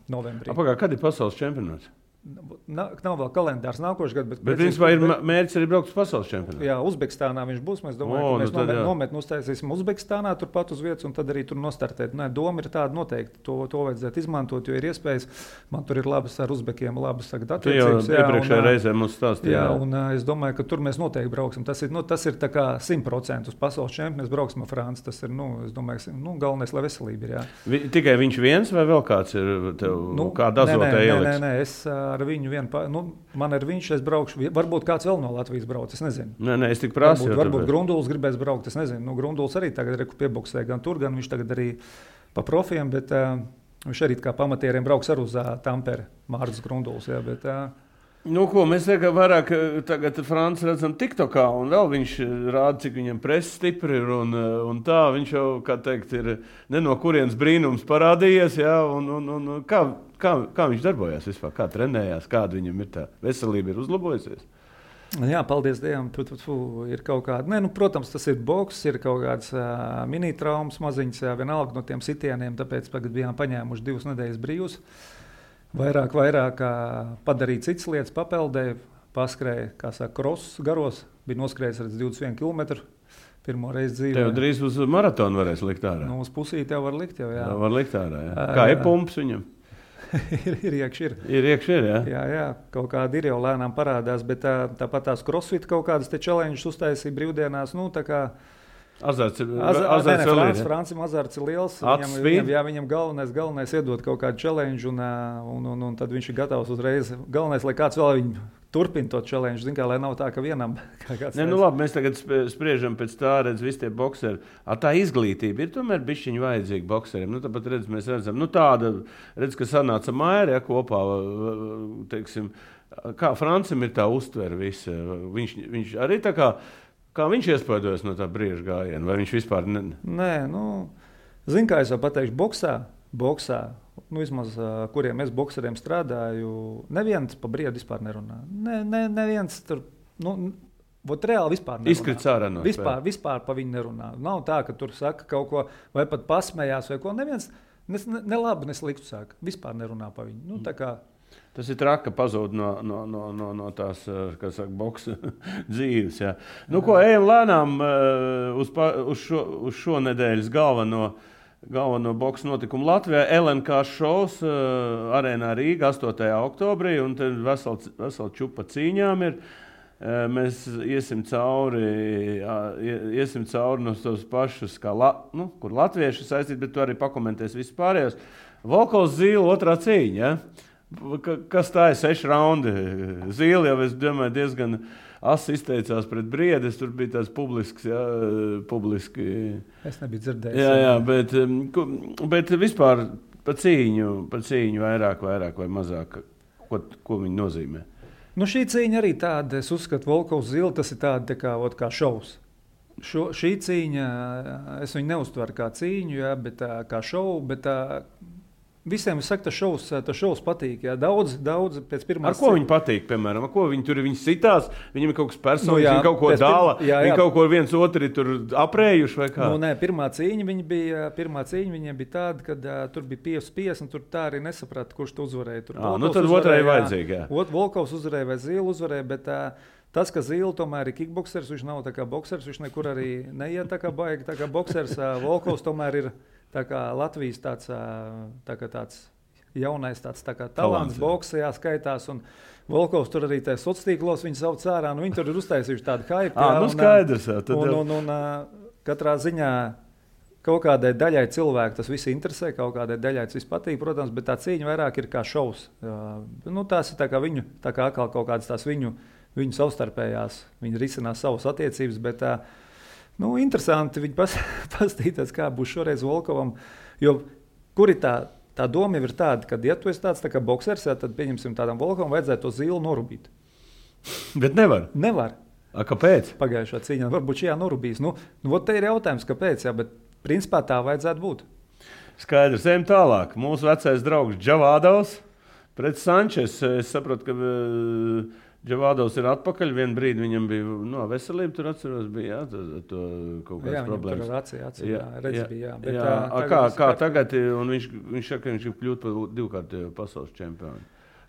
novembrī. Kad ir pasaules čempionāts? Nav vēl kalendārs nākošais gads. Bet principā ir mērķis arī braukt uz pasaules čempionātu. Jā, Uzbekistānā viņš būs. Mēs domājam, ka mēs nometni uztaisīsim Uzbekistānā, turpat uz vietas, un tad arī tur nostartēt. Nē, doma ir tāda noteikti. To vajadzētu izmantot, jo ir iespējas. Man tur ir labas ar uzbekiem, labas attiecības. Tu jau iepriekšējā reizē mums stāstīji. Jā, un es domāju, ka tur mēs noteikti brauksim. Tas ir tā kā 100% uz pasaules čempionu. Mēs brauksim ar Franci. Tas ir, es domāju, galvenais, lai veselība ir. Jā. Tikai viņš viens vai vēl kāds ir tev kāda azotē ieliks? Nē, es ar viņu man ir viņš, es braukšu. Varbūt kāds vēl no Latvijas brauc, es nezinu. Nē, es tik prasu. Varbūt Grunduls gribēs braukt, es nezinu. Grunduls arī tagad piebuksē gan tur, gan viņš tagad arī pa profiem, bet viņš arī kā pamatieriem brauks ar uz Tamperi, Mārcis Grunduls. Jā, bet, mēs vairāk tagad Franci redzam TikTokā, un vēl viņš rāda, cik viņam presa stipri ir, un tā viņš jau, kā teikt, ir ne no kurienes brīnums parādījies, jā, un kā viņš darbojās vispār, kā trenējās, kāda viņam ir tā veselība ir uzlabojusies? Jā, paldies Dievam, ir kaut kāda, protams, tas ir boks, ir kaut kāds mini-traumas maziņas, vienalga no tiem sitieniem, tāpēc tagad bijām paņēmuši 2 nedēļas brīvus. Vairāk padarīt citas lietas, papeldēja, paskrēja, kā saka, krosus garos, bija noskrējis ar 21 km. Pirmo reizi dzīvē. Tev drīz uz maratonu varēs likt ārā. Uz pusīti jau var likt, jā. Var likt ārā, jā. Kā ir pumps viņam? ir iekšā. Ir iekšā, jā. Jā, kaut kāda ir jau lēnām parādās, bet tāpat tās crossfit kaut kādas te challenges uztaisīja brīvdienās, tā kā azarts Francim azarts ir liels. Viņam galvenais iedot kaut kādu challenge, un tad viņš ir gatavs uzreiz. Galvenais, lai kāds vēl viņu turpina to challenge, lai nav tā, ka vienam kāds. Labi, mēs tagad spriežam pēc tā, visi tie bokseri. Tā izglītība ir tomēr bišķiņ vajadzīga bokseriem. Tāpat mēs redzam, tāda, ka sanāca Maira kopā, teiksim, kā Francim ir tā uztvere visa. Viņš arī tā kā viņš iespaidojas no tā brīža gājiena, vai viņš vispār Nē, zin, kā es jau pateikšu, boksā, vismaz, kuriem es bokseriem strādāju, neviens pa briedu vispār nerunā. Neviens tur, Vot reāli vispār nerunā. Izkrits ārā no vispār pa viņu nerunā. Nav tā, ka tur saka kaut ko, vai pat pasmējās, vai ko. Neviens ne labi, ne sliktu saka. Vispār nerunā pa viņu. Nu, tā kā... Tas ir traki, ka pazūd no tās, kā saka, boksa dzīves. Jā. Nu, ko ejam lēnām uz šo nedēļas galveno boksa notikumu Latvijā. LNK šovs arēnā Rīga 8. oktobrī, un te vesela čupa cīņām ir. Mēs iesim cauri no tos pašus, kur latvieši saistīt, bet tu arī pakomentēs visu pārējos. Volkovs Zīle otrā cīņa, ja? Kas tā ir 6 raundi? Zīle jau, es domāju, diezgan asi izteicās pret Briedes, tur bija tāds publiski. Es nebiju dzirdējis. Jā, bet vispār pa cīņu vairāk vai mazāk, ko viņi nozīmē? Nu, šī cīņa arī tāda, es uzskatu, Volkovs Zīle, tas ir tāda kā šovs. Šī cīņa, es viņu neuztveru kā cīņu, jā, bet kā šovu, bet visiem es saku, tas šovs patīk. Jā. Daudz pēc pirmās... Ar ko viņi patīk, piemēram? Ar ko viņi sitās? Viņam ir kaut kas personīgs, viņi kaut ko dāla, viņi kaut ko viens otri tur aprējuši vai kā? Nu, nē, pirmā cīņa viņiem bija tāda, kad tur bija 5-5, un tur tā arī nesaprata, kurš tu uzvarēja. Tur tad otrai vajadzīgi, jā. Volkovs uzvarēja vai Zīle uzvarēja, bet tas, ka Zīle tomēr ir kickboksers, viņš nav tā kā boksers, viņš nekur arī neiet tā kā baigi, tā kā boksers. Volkovs tomēr ir tā kā Latvijas tāds jaunais tā kā talants boksā skaitās, un Volkovs tur arī tajā sociālos viņu sauc ārā, nu viņi tur ir uztaisījuši tādu hype. Nu skaidrs, jā. Un katrā ziņā kaut kādai daļai cilvēku tas viss interesē, kaut kādai daļai tas viss patīk, protams, bet tā cīņa vairāk ir kā šovs. Nu tās ir tā kā atkal kaut kādas tās viņu savstarpējās, viņi risinās savas attiecības, bet nu, interesanti viņi pastīties, kā būs šoreiz Volkovam, jo kur ir tā doma jau ir tāda, ka, ja tu esi tāds tā kā boksers, tad pieņemsim tādam Volkovam vajadzētu to Zīli norubīt. Bet nevar? Nevar. Kāpēc? Pagājušā cīņā varbūt šajā norubīs. Nu, te ir jautājums, kāpēc, jā, bet principā tā vajadzētu būt. Skaidrs, ejam tālāk. Mūsu vecais draugs Džavādovs pret Sančes. Es saprotu, ka Džavādovs ir atpakaļ. Vienu brīdi viņam bija veselība, tur atceros, bija to kaut kādas problēmas. Jā, redz bija. Bet, kā tagad, un viņš saka, ka viņš ir kļūt par 2-kārtējo pasaules čempionu.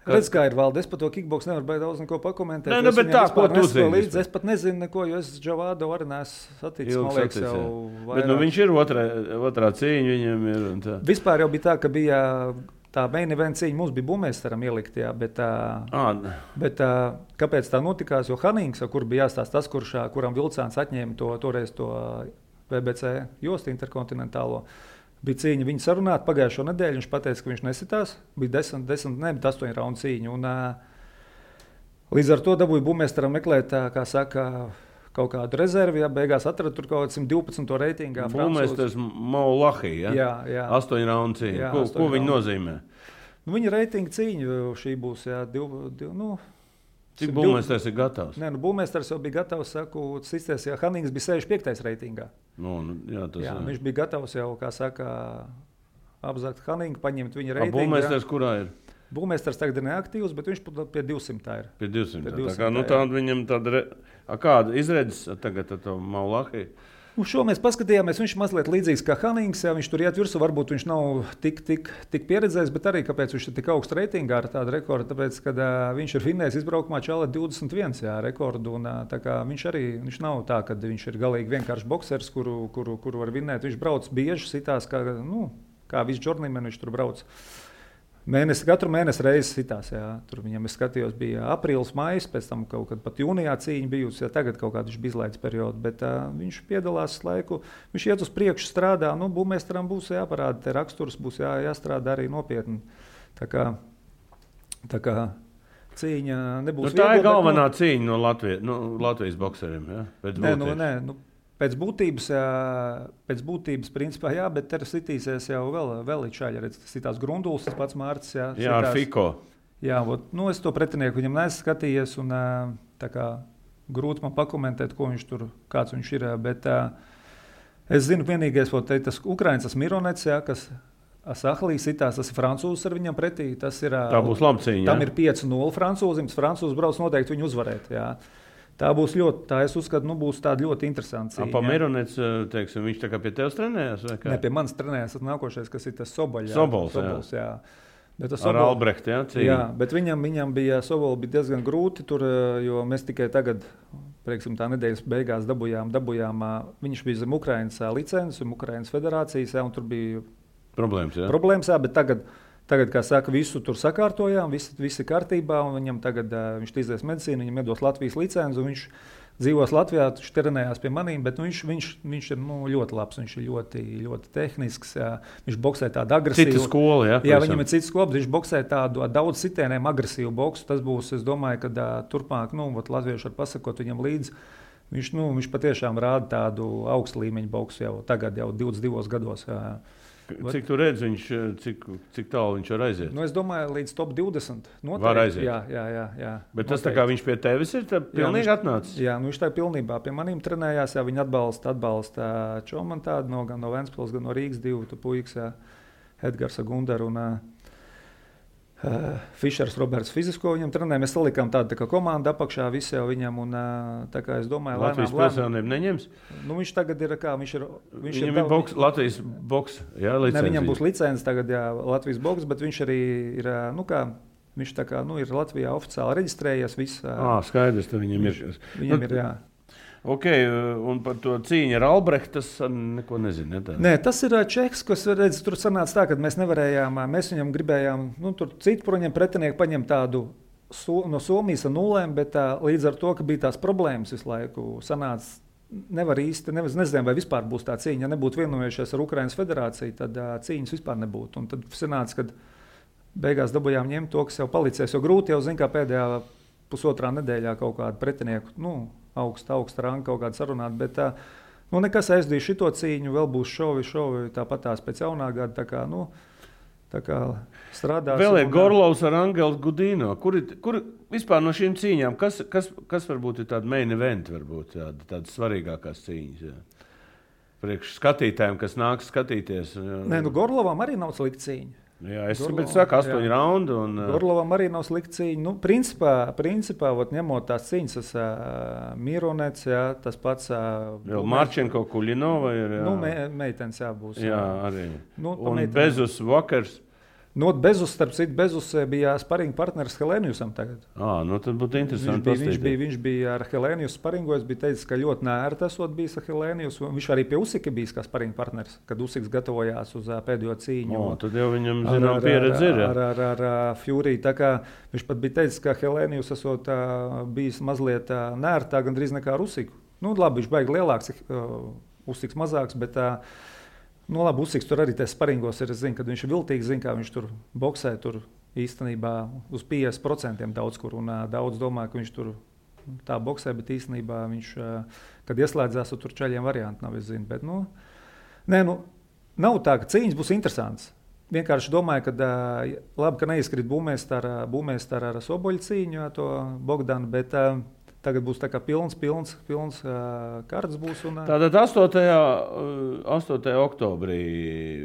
Redz, kā ir Valde, es par to kickboks nevaru baigi daudz neko pakomentēt. Nē, bet tā, ko tu zini? Es pat nezinu neko, jo es Džavādovu arī neesmu saticis, man liekas, jau vairāk. Bet viņš ir otrā cīņa, viņam ir un tā. Vispār jau bija tā, ka bija tā main event cīņa, mums bija Bumeisteram ielikt, jā, bet kāpēc tā notikās, jo Hanings, kur bija jāstāst tas, kuram Vilcāns atņēma toreiz to BBC jostu interkontinentālo, bija cīņa viņu sarunāt pagājušo nedēļu, viņš pateica, ka viņš nesitās, bija 8 raundu cīņa, un līdz ar to dabūja Bumeisteram meklēt, kā saka, kaut kādu rezervi, ja beigās atrada tur kaut 112. reitingā. Bumeisters Maulahī, ja? Jā. 8 raundu cīņa. Ko viņi nozīmē? Nu, viņa reitinga cīņa šī būs, jā, Cik Bumeisters ir gatavs? Nē, Bumeisters jau bija gatavs, sisties, ja Hanings bija 65. reitingā. Viņš bija gatavs jau, kā saka, apzakt Haningu, paņemt viņa reitingu. Bumeisters kurā ir? Bumeisters tagad ir neaktīvs, bet viņš pie 200 ir. Pie 200. Tāda viņam tāda... Kāda izredzes tagad ar to Maulahī? Šo mēs paskatījāmies, viņš mazliet līdzīgs kā Hanings, ja viņš tur iet virsū, varbūt viņš nav tik pieredzējis, bet arī kāpēc viņš ir tik augsts reitingā ar tādu rekordu, tāpēc, kad viņš ir finējis izbraukumā čālē 21 rekordu, un tā kā viņš nav tā, ka viņš ir galīgi vienkārši boksers, kuru var vinēt, viņš brauc bieži sitās, kā viss džornīmen viņš tur brauc. Katru mēnesi reizes sitās, jā. Tur viņam, es skatījos, bija aprīlis, maijs, pēc tam kaut kad pat jūnijā cīņa bijusi, ja tagad kaut kādu viņš bija izlaidis periodu, bet viņš piedalās laiku, viņš iet uz priekšu strādā, Bumeisteram būs jāparāda, te raksturs būs jāstrādā arī nopietni. Tā kā cīņa nebūs tā ir galvenā cīņa no Latvijas bokseriem, jā? Nē, Pēc būtības, principā, jā, bet te sitīsies jau vēl līdz redz, sitās Grunduls, tas pats Mārcis, jā. Jā, ar Fiko. Jā, es to pretinieku viņam neesmu skatījies, un tā kā grūti man pakomentēt, kāds viņš ir, bet es zinu vienīgais, tas Ukraiņas, tas Mironets, jā, kas Sahlī sitās, tas ir francūzs ar viņam pretī, tas ir... Tā būs laba cīņa, jā. Tam ir 5-0 francūzim, tas francūzs brauc noteikti viņu uzvarēt, jā. Tā būs ļoti, tā es uzskatu, būs tāda ļoti interesanta cīņa. Mironets, teiksim, viņš tā kā pie tevis trenējās? Ne, pie manis trenējās, tas nākošais, kas ir tas Soboļs. Sobols, jā. Bet ar Albrehtu, jā? Cīņa. Jā, bet viņam bija Soboļs bija diezgan grūti tur, jo mēs tikai tagad, prieksim, tā nedēļas beigās dabujām, viņš bija zem Ukrainas licences, Ukrainas federācijas, un tur bija problēmas, bet Tagad, kā saka, visu tur sakārtojām, viss ir kārtībā, un viņam tagad viņš izies medicīnu, viņam iedos Latvijas licenci, un viņš dzīvos Latvijā, viņš trenējās pie manīm, bet viņš ir ļoti labs, viņš ir ļoti, ļoti tehnisks, viņš boksē tādu agresīvu. Cita skola, jā? Jā, viņam ir cita skola, bet viņš boksē tādu daudz sitieniem agresīvu boksu. Tas būs, es domāju, ka turpmāk, latvieši var pasakot viņam līdzi. Viņš patiešām rāda tādu augstu līmeņu boksu jau tagad, jau 22 gados. Jā. Cik tu redzi, cik tālu viņš var aiziet? Es domāju, līdz top 20. Noteikti. Var aiziet. Jā. Bet tas tā kā viņš pie tevis ir pilnīgi atnācis? Jā, viņš tā pilnībā pie manīm trenējās. Jā, viņi atbalsta Čomanu tādu gan no Ventspils, gan no Rīgas divu puikas, Edgars Gundar un Fišers Roberts fizisko viņam trenē. Mēs salikām tādu tā kā komandu apakšā visi jau viņam. Un, tā kā es domāju, Latvijas pilsēnību neņems? Viņš tagad ir kā, viņam ir Latvijas boks, jā, licenci. Ne, viņam būs licenci tagad, jā, Latvijas boks, bet viņš arī ir, viņš tā kā, ir Latvijā oficiāli reģistrējies viss. Skaidrs, tad viņam ir. Viņam ir, jā. Ok, un par to cīņu ar Albrehtu tas neko nezinu. Nē, tas ir Čehs, kas redz, tur sanāca tā, ka mēs nevarējām, mēs viņam gribējām, tur citu par viņam pretinieku paņemt tādu no Somijas ar nulēm, bet līdz ar to, ka bija tās problēmas visu laiku, sanāca, nevar īsti, nezinām, vai vispār būs tā cīņa. Ja nebūtu vienojušies ar Ukrainas federāciju, tad cīņas vispār nebūtu. Un tad sanāca, kad beigās dabūjām ņemt to, kas jau palicies, jo grūti jau zin, kā pēdējā pusotrā nedēļā kaut kādu pretinieku, augsta ranga kaut kādu sarunāt, bet nekas aizdīja šito cīņu, vēl būs šovi tāpat tās pēc jaunā gada, tā kā strādās. Vēl ir Gorlovs ar Angelu Gudino. Kur vispār no šīm cīņām, kas varbūt ir tāda main event, varbūt tādas svarīgākās cīņas? Jā. Priekš skatītājiem, kas nāk skatīties. Nē, Gorlovam arī nav slikta cīņa. Jā, es saku 8 raundu. Gorlovam arī nav slikta cīņa. Principā ņemot tās cīņas, tas Mironets, jā, tas pats... Marčenko, Kuļinova ir... Meitenes jābūs. Jā, arī. Un Bezus Vakars. Bezus, starp citu, Bezus bija sparinga partneris Helēnijusam tagad. Tad būtu interesanti. Viņš bija ar Helēnijus sparingojis, bija teicis, ka ļoti nērti esot bijis ar Helēnijus. Viņš arī pie Usika bijis kā sparinga partneris, kad Usiks gatavojās uz pēdējo cīņu. Tad jau viņam zinām pieredze ir. Ar Fury. Tā kā viņš pat bija teicis, ka Helēnijus esot bijis mazliet nērtāk, gandrīz nekā ar Usiku. Labi, viņš baigi lielāks, Usiks mazāks, bet... labi, Usiks tur arī tās sparingos ir, es zinu, kad viņš ir viltīgs, zinu, kā viņš tur boksē, tur īstenībā uz 50% daudz kur, un daudz domā, ka viņš tur tā boksē, bet īstenībā viņš, kad ieslēdzās, tur čaļiem varianti nav, es zinu, bet, nav tā, ka cīņas būs interesants. Vienkārši domāju, ka labi, ka neizkrīt būmēs ar Soboļu cīņu, to Bogdanu, bet tagad būs tā kā pilns kārtas būs. Tātad 8. oktobrī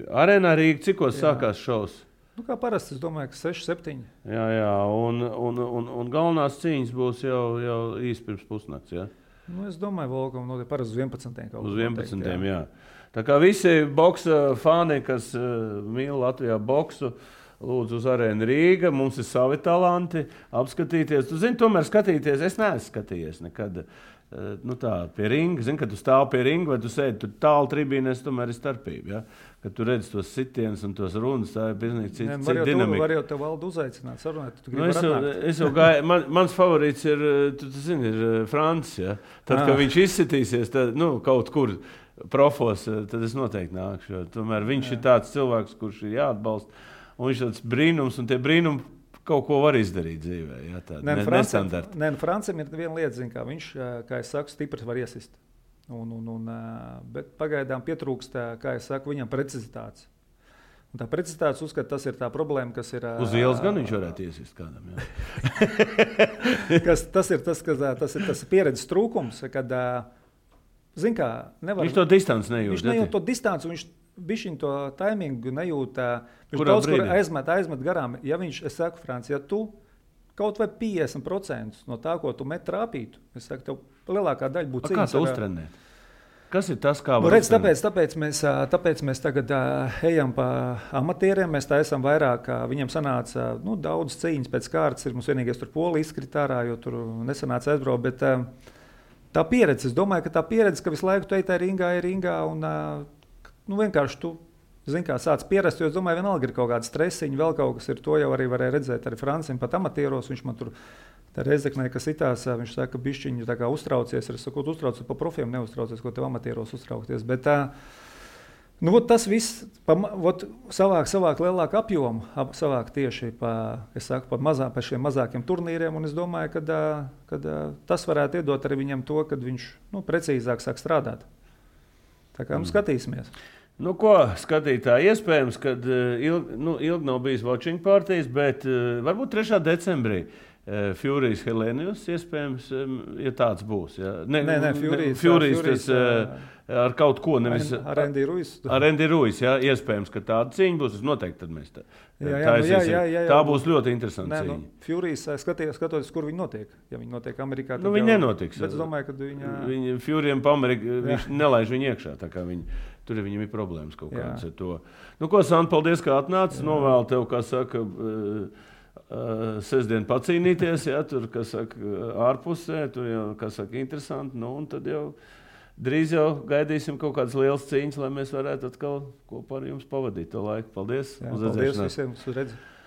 Arēnā Rīga, cikos sākās šovs? Kā parasti, es domāju, ka 6-7. Jā, un galvenās cīņas būs jau īsti pirms pusnakts, jā? Es domāju, Volkam notiek parasti uz 11. Uz 11. Jā. Tā kā visi boksa fani, kas mīl Latvijā boksu, lūdzu uz Arēnu Rīga, mums ir savi talanti, apskatīties. Tu zini, tomēr skatīties, es neesmu skatījies nekad pie ringa. Zini, kad tu stāv pie ringa vai tu sēdi tur tālu tribīnēs, tomēr ir starpība. Ja? Kad tu redzi tos sitienus un tos runas, tā ir pilnīgi cita dinamika. Var jau tev valdu uzaicināt, sarunāt, tu gribi es jau gāju, mans favorīts ir, tu zini, ir Francis. Ja? Tad, kad viņš izsitīsies, tad, kaut kur profos, tad es noteikti nākšu. Tomēr viņš ir tāds cilvēks, kurš ir jāatbalsta. Un viņš tāds brīnums, un tie brīnumi kaut ko var izdarīt dzīvē. Jā, nestandarti. Francim ir viena lieta, kā viņš, kā es saku, stiprs var iesist. Bet pagaidām pietrūkst, kā es saku, viņam precizitātes. Un tā precizitātes uzskata, tas ir tā problēma, kas ir... Uz ielas gan viņš varētu iesist kādam, jā. Tas ir pieredzes trūkums, kad, zin kā, nevar... Viņš to distanci nejūt. Viņš nejūt to distanci, viņš bišķiņ to taimingu nejūt, viņš daudz kur aizmet garām. Ja viņš, es saku, Franci, ja tu kaut vai 50% no tā, ko tu met trāpītu, es saku, tev lielākā daļa būtu cīņas. Kā tu uztrenēt? Kas ir tas, kā var redz, tāpēc mēs tagad ejam pa amatieriem, mēs tā esam vairāk, viņiem sanāca daudz cīņas pēc kārtas, mums vienīgais tur Polija izkrita ārā, jo tur nesanāca aizbraukt, bet tā pieredze, es domāju, ka tā pieredze, ka visu laiku tu ej tā ringā un vienkārši tu, zini, kā sāc pierast, jo es domāju, vienalga ir kaut kāda stresiņa, vēl kaut kas ir, to jau arī varēja redzēt arī Francim pat amatieros, viņš man tur tā Reizeknē, kas itās, viņš saka, ka bišķiņi tā kā uztraucies, es saku, uztraucies pa profiem, neuztraucies, ko tev amatieros uztraukties, bet tas viss savāk lielāku apjomu, savāk tieši pa šiem mazākiem turnīriem, un es domāju, ka tas varētu iedot arī viņam to, kad viņš precīzāk sāk strādāt. Tā kā skatīsimies. Ko skatītāji, iespējams, kad ilgi nav bijis watching partijas, bet varbūt 3. decembrī Furijs Helēnijus, iespējams, ja tāds būs. Ja? Nē, Furijs tas ar kaut ko nevis... Ar Andy Ruiz. Ar Andy Ruiz, jā, iespējams, ka tāda cīņa būs, noteikti tad mēs jā, tā būs ļoti interesanta cīņa. Furijs skatoties, kur viņi notiek. Ja viņi notiek Amerikā, tad viņi nenotiks. Bet es domāju, ka Furijam pa Ameriku, viņš nelaiž viņu iekšā, tā kā tur viņam ir problēmas kaut kādas ar to. Ko, Santa, paldies, kā atnācis, novēlu tev, kā saka, sestdien pacīnīties, ja, tur, kas saka, ārpusē, tur jau, kas saka, interesanti, un tad jau drīz jau gaidīsim kaut kādas lielas cīņas, lai mēs varētu atkal kopā ar jums pavadīt to laiku. Paldies! Paldies visiem, uz redzi!